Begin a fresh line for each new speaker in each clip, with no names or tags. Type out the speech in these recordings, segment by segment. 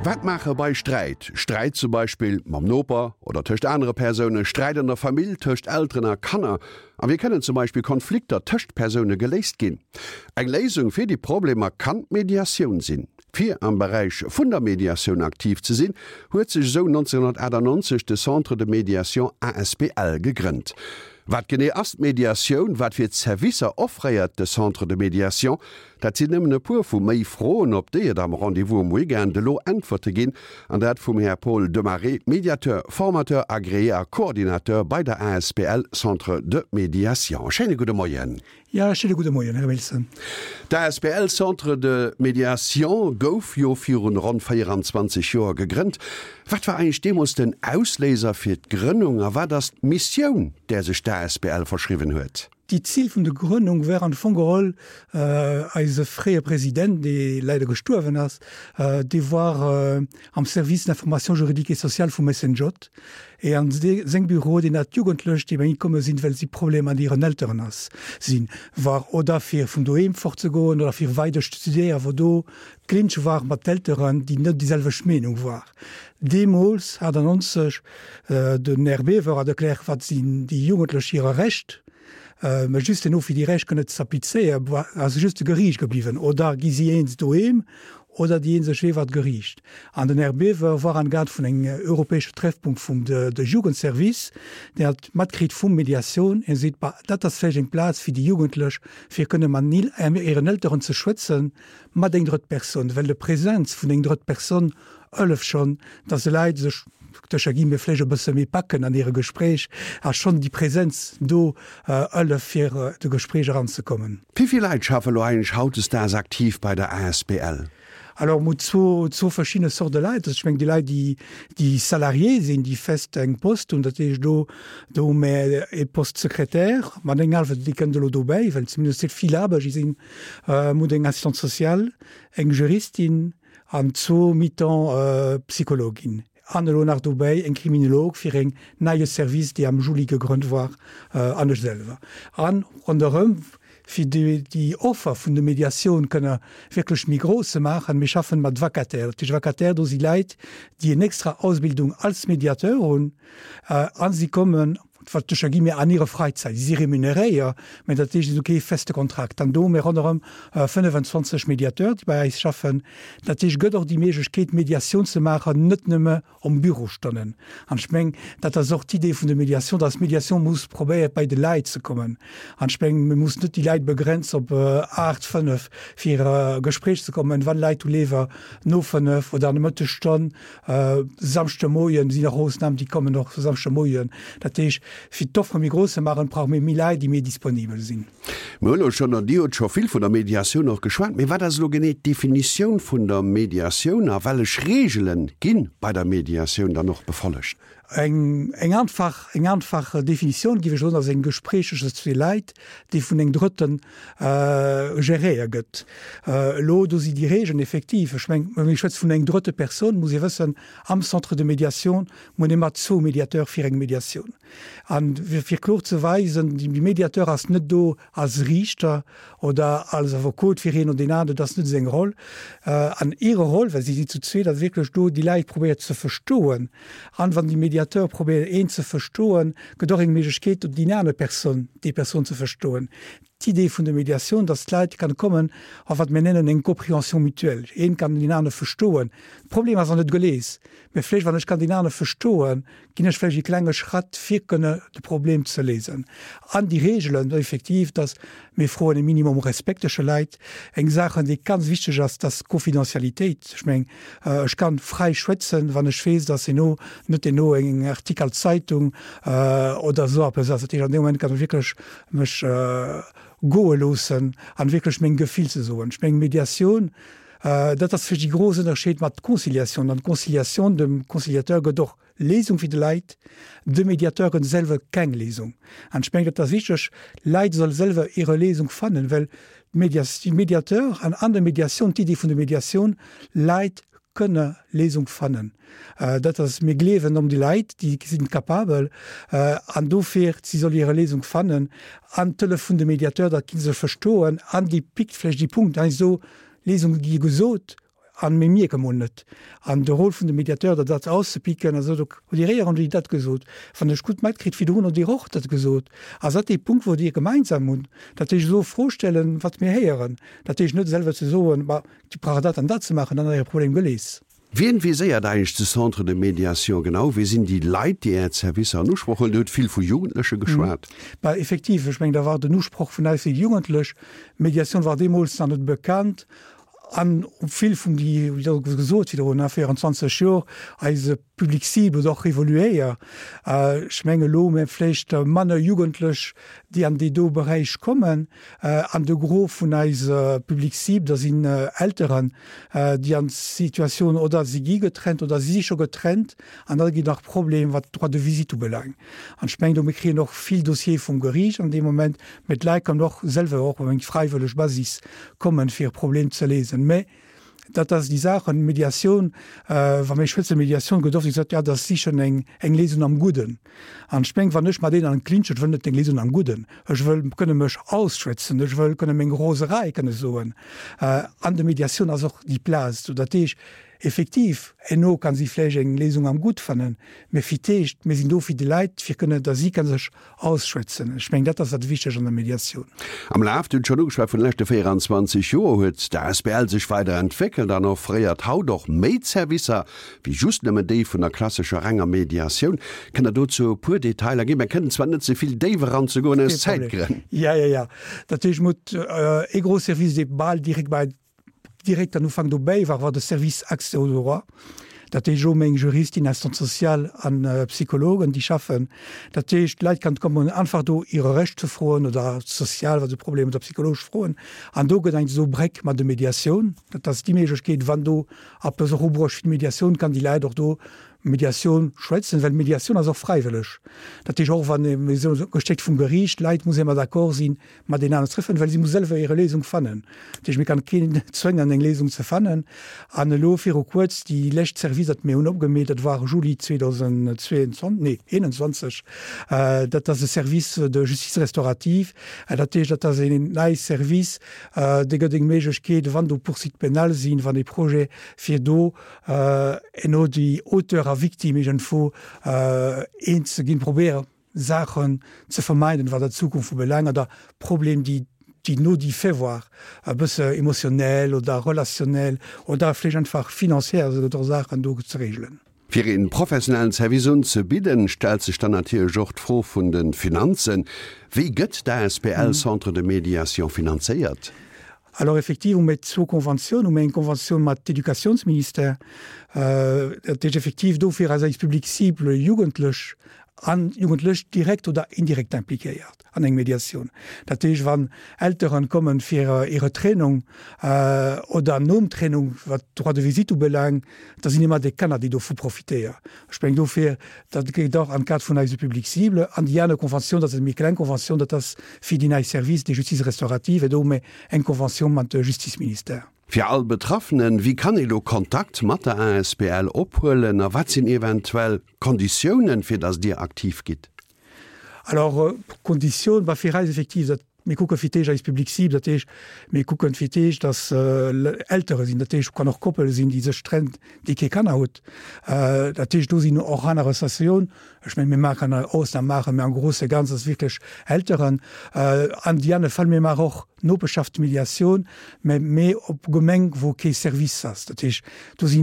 Wat maache bei Sträit? Sträit zum Beispill mam Noper oder tëscht anere Persounen, Sträit an der Famill, tëscht Elteren a Kanner. A wéi kënnen zum Beispill Konflikter tëscht Persoune geléist ginn? Eng Léisung fir déi Problemer kann d'Mediatioun sinn. Fir am Beräich vun der Mediatioun aktiv ze sinn, huet sech esou 1998 de Centre de Médiation asbl gegrënnt. Wat genee ass d'Mediatioun? Wat fir Zerwisser offréiert de Centre de Médiation? Dat sinn nëmmen e puer vu méi Froen, op déi et am Rendez-vous um Weekend elo Äntwerte ginn, an dat vum Här Paul Demaré, Médiateur, Formateur agréé a Coordinateur bei der asbl Centre de Médiation. Schéine gudde Moien.
Jo, schéine gudde Moien, Här Wilson.
D'asbl Centre de Médiation gouf jo virun ronn 24 Joer gegrënnt. Wat war eigentlech deemools den Ausléiser fir d'Grënnung a wat ass d'Missioun, där sech d'asbl verschriwwen huet?
Déi Zil vun der Grënnung war am Fong geholl, eise fréier President, dee leider gestuerwen ass, dee war am Service d'information juridique et sociale vum SNJ, Et an seng Büro, deen hat Jugendlech, déi bei him komme sinn, well si Problemer mat hiren Elteren ass sinn, war oder fir vun doheem fortzegoen oder fir weider studéieren, wou do Clinch war mat d'Elteren, déi net déi selwecht Meenung war. Deemools, 98, den Här Biever hat erkläert, wat sinn déi Jugendlech hire Recht, mä just herno fir déi Recht kënne ze applizéieren, ass just de Geriicht gebliwwen oder gi si eens doheem oder déi eenzeg Wee war d'Geriicht. An den Här Biever war am Cadre vun engem europäesche Treffpunkt vum de Jugendservice, deen hat matkritt vum Mediatioun, hie seet, bah, dat ass vläicht eng Plaz fir déi Jugendlech, fir kënne mat hiren Elteren ze schwätzen, mat eng drëtt Persoun, well de Präsenz vun eng drëtt Persoun hëlleft schonn, dass de Leit sech, doduercher gi mir vläicht e bësse méi packen an hire Gespréich, a schonn déi Präsenz do hëlleft fir de Gespréich eranzekommen.
Wéi vill Leit schaffe lo eigentlech hautdesdaags aktiv bei der asbl?
Alors, mir hu zwou verschidde Sorte Leit. Also ech mengen déi Leit, déi, déi Salarié sinn, déi fest eng Post hunn, dat heescht do, do hu mir ee Poste Secrétaire mat engem hallwen, déi kënnt elo dobäi, well zumindest vill Aarbecht si sinn. Mir hunn eng Assistante sociale, eng Juristin an zwou mi-temps Psychologin. An elo nach dobäi eng Kriminolog fir eng neie Service, déi am Juli gegrënnt war, an ech selwer. An ronderëm, fir déi Offer vun de Mediatioun kënne wierklech méi grouss ze maachen, mir schaffen mat Vacataires. Dat heescht Vacataires, do si Leit, déi eng extra Ausbildung als Mediateur hunn, a si kommen, wat sécher gi mir an hire Freizäit, si si remuneréier, mä dat heescht, si hu kee feste Kontrakt. An do hu mir ronderëm 25 Mediateurs, déi bei eis schaffen. Dat heescht, et gëtt och déi Méiglechkeet, Mediatioun ze maachen, net nëmme om Bürostonnen. An ech meng, dat ass och d'Idee vun der Mediation, dass d'Mediation muss probéiert, bei de Leit ze kommen. An ech meng, mir mussen net déi Leit begrenzen op aacht, fënnef, fir a Gespréich ze kommen. Wann Leit hu léiwer no fënnef oder an der Mëttesstonn, Samschdemoien sinn och Ausnahmen, déi kommen och Samschdemoien. Dat heescht, fir d'Offre méi grouss ze maachen, brauche mir méi Leit, déi méi disponibel sinn.
Mir hunn elo schonn, an Dir hutt scho vill vun der Mediatioun och geschwat, mee wat ass elo genee d'Definitioun vun der Mediatioun a wellech Reegele gi bei der Mediatioun dann och befollegt?
Eng eng einfach eng einfach Definitioun géif ech soen, ass eng Gespréich tëschent zwee Leit, déi vun engem Drëtten geréiert gëtt. Elo do si déi Regeln effektiv, ech meng, wa mir schwätze vun eng drëtte Persoun, muss ee wëssen, am Centre de médiation muss een ëmmer zwou Médiateurs fir eng Médiatioun. An fir kloer ze weisen, de Médiateur ass net do als Riichter oder als Affekot fir een oder deen aneren, dat ass net seng Roll. An hire Roll, well si si zu zweet, ass wierklech do, déi Leit probéiert ze verstoen. An wann de Mediateur probéiert een ze verstoen, gëtt och eng Méiglechkeet do déi aner Persoun, déi Persoun ze verstoen. D'Idee vun der Mediatioun, dass d'Leit kann kommen a wat mir nennen eng Compréhension mutuelle, een kann deen anere verstoen. De Problem ass nach net geléist, mä vläicht wann ech kann deen anere verstoen, ginn ech vläicht e klenge Schratt fir kënne de Problem ze léisen. An déi Reegelen effektiv, dass mir froen e Minimum Respekt tësche Leit. Eng Saachen, déi ganz wichteg ass, dass d'Confidentialitéit. Ech meng, ech kann fräi schwätzen, wann ech weess, dass herno net herno eng Artikel Zeitung oder esou eppes ass. Dat heescht, an deem Moment kann ech wierklech mech goe loossen an wierklech meng Gefill ze soen. Ech meng, Mediatioun, dat ass vläicht déi grouss Ënnerscheed mat Conciliatioun. An d'Conciliatioun, dem Conciliateur gëtt och Léisung fir de Leit, de Mediateur gëtt selwer keng Léisung. An ech mengen, dat ass wichteg, Leit solle selwer hire Léisung fannen, well de Mediateur an an der Mediatioun, d'Idee vun der Mediatioun, Leit kënne Léisung fannen. Dat ass, mir gleewen om déi Leit, déi sinn capabel an dofir, si solle hire Léisung fannen an d'Hëllef vun de Mediateur, dat gi se verstoen an déi pickt vläicht déi Punkt, heiansdo Léisung gi gesot. An mir mierke mol net. An de Rôle vun de Médiateur, dat dat auszepicken, also do hutt Dir éier an dat gesot, wann ech gutt matkritt, virdrun hutt Dir och dat gesot, ass dat dee Punkt, wou Dir gemeinsam hunn, dat heescht elo Fro stellen, wat mir héieren, dat heescht net selwer ze soen, ma Dir braucht dat an dat ze maachen, dann ass Äre Problem geléist.
Wien viséiert eigentlech de Centre de médiation genau? Wie sinn déi Leit, déi Är Zerwisser an Usproch huelen? Dir hutt vill vu Jugendleche geschwat.
Bah, effektiv, ech mengen, da war den Usproch vun eis déi Jugendlech. Médiation war deemools nach net bekannt. An vill vun déi, wéi der gesot virdrun, 24 Jor, eise Public cible huet och evoluéiert. Ech menge elo hu mir vläicht manner Jugendlech, déi an dee do Beräich kommen. An de Gros vun eise Public cible, da sinn Elteren, déi an d'Situatioun oder si gi getrennt oder si si scho getrennt an da ginn nach Problem wat d'Droit de visite ubelaangt. An ech mengen do, mir kréien och vill Dossiere vum Geriicht an deem Moment, mä d'Leit kënnen och selwer och op eng fräiwëlleg Basis kommen, fir e Problem ze léisen. Mä dat ass déi Saachen, Mediatioun, wa mir schwätzen, Mediatioun gëtt oft gesot, jo, dat ass sichen eng, eng Léisung am Gudden. An ech meng, wann ech mat een an Clinch, ech wëll net eng Léisung am Gudden, ech wëll kënne mech ausschwätzen, ech wëll kënne meng Roserei kënne soen. An de Mediatioun ass och déi Plaz do. Dat heescht, effektiv, herno kann si vläicht eng Léisung am Gutt fannen, mä fir d'éischt, mir sinn do fir déi Leit, fir kënne, datt si kënne sech Ausschwätzen. Ech mengen, dat ass dat Wichteg an der Mediatioun.
Am Laf, Dir hutt schonn ugeschwat, vun de leschte 24 Joer huet d'ASBL sech weider entwéckelt an offréiert haut och méi Zerwisser wéi just nëmmen déi vun der klassescher renger Mediatioun. Kënnt Der dozou e puer Detailer ginn? Mir kënnen zwar net ze vill déif eranzegoen aus Zäitgrënn.
Jo, jo, jo. Dat heescht, mir hutt ee gros Service, dee bal direkt bei Direkt an Ufank dobäi war war de Service Accès aux droits, dat heescht och meng Juristin, Assistante sociale an Psychologen, déi schaffen. Dat heescht, d'Leit kann kommen einfach do hire Recht ze froen oder sozial, wa se Problemer oder psychologesch Froen. An do gëtt eng esou Bréck mat de Mediatioun. Dat ass déi Méiglechkeet, wann do eppes och ubruecht fir d'Mediatioun, kann déi Leit och do Mediatioun schwätzen, well Mediatioun ass och fräiwëlleg. Dat heescht, och wann ee gestéckt vum Geriicht, d'Leit muss ëmmer d'accord sinn, mat een aner treffen, well si muss selwer hire Léisung fannen. Dat heescht, mir kann keen zwéngen, eng Léisung ze fannen. An elo viru kuerz, déi lescht Service, dat mir hunn opgemeet, dat war Juli 2022, nee 21, dat ass e Service de justice restaurative. Dat heescht, dat ass een nei Service, dee gëtt eng Méiglechkeet, wann do Poursuites pénales sinn, wann ee Projet, fir do eno déi Auteur a Victime iergendwou eens ze ginn, probéieren, Saachen ze vermeiden, wat der Zukunft ubelaangt, oder Problem, déi déi no déi fait war, e bësse émotionnel oder relationnel oder vläicht einfach financière, also et gëtt och Saachen do ze regelen.
Fir een professionellen Service unzebidden, stellt sech dann natierlech och d'Fro vun de Finanzen. Wéi gëtt d'ASBL Centre de Médiation finanzéiert?
Alors effektiv hu mir zwou Konventiounen. Hu mir eng Konventioun mat Educationsministère, dat heescht effektiv dofir ass eis Public cible Jugendlech an Jugendlech direkt oder indirekt impliquéiert an eng Mediatioun. Dat heescht, wann Elteren kommen fir hire Trennung oder nom Trennung, wat d'Droit de visite ubelaangt, da sinn ëmmer déi Kanner, déi dovu profitéieren. Ech mengen dofir, dat geet och am Cadre vun eise Public cible. An déi aner Conventioun, dat ass eng méi kleng Conventioun, dat ass fir déi nei Services de justice restaurative, do hu mir eng Conventioun mat de Justizministère.
Fir all Betraffenen, Wéi kann ee lo Kontakt mat der asbl ophuelen a wat sinn eventuell Konditiounen, fir datt Dir aktiv gitt?
Alors, Konditioun war fir eis effektiv, datt mir kucke fir d'éischt eis Public cible, dat heescht, mir kucken fir d'éischt, datt Eltere sinn, dat heescht, kann och Koppele sinn, déi sech trennt, déi kee Kanner hutt. Dat heescht, do sinn och aner Associatioun, ech mengen, mir maachen Ausnam maachen, mä am grouse Ganzen ass wierklech Elteren. An déi aner Fäll, mir maachen och Nopeschaftsmediatioun, mä méi op Gemeng, wou kee Service ass. Dat heescht, do si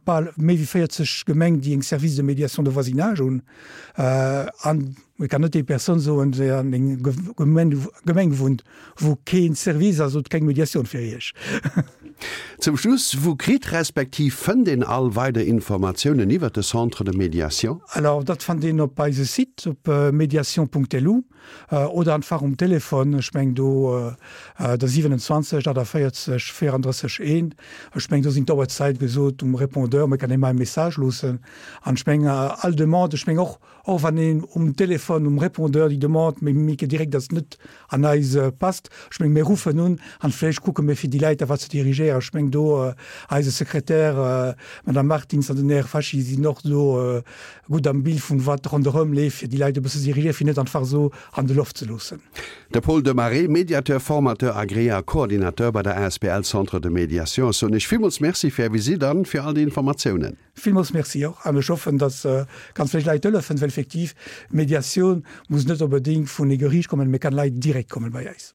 bal méi wéi 40 Gemeng, déi eng Service de médiation de voisinage hunn. An et kann net déi Persoun soen, déi an eng Gemeng wunnt, wou kee Service ass, hutt keng Mediatioun fir Iech.
Zum Schluss, Wou kritt respektiv fënnt een all weider Informatiounen iwwert de Centre de Médiation?
Alors, dat fannt een op eise Site op mediation.lu oder einfach um Telefon, ech meng do der 27 48 34 1. Ech meng do sinn d'Auerzäit gesot um Répondeur, mä kann ee mer e Message loossen. An ech mengen, all Demande, ech mengen och, och wann een um Téléphone, um Répondeur déi Demande méi méi direkt ass, net an eis passt, ech mengen, mir ruffen un an vläicht kucke mir fir déi Läit da wat ze dirigéieren. Ech mengen do eise Sekretär, d'Madame Martins an den Här Faschi sinn och do gutt am Bild vun wat ronderëm leeft, fir déi Läit e bësse ze dirigéieren, fir net einfach esou. an de Loft ze loossen.
De Paul Demaré, Médiateur, Formateur agréé a Coordinateur bei der asbl Centre de Médiation. Ech soen Iech villmools Merci fir Är Visitt an fir all déi Informatiounen.
Villmools Merci och an ech hoffen, dass ganz vill Leit hëllefen, well effektiv Mediatioun muss net onbedéngt vun ee Geriicht kommen, mee kann Leit direkt kommen bei eis.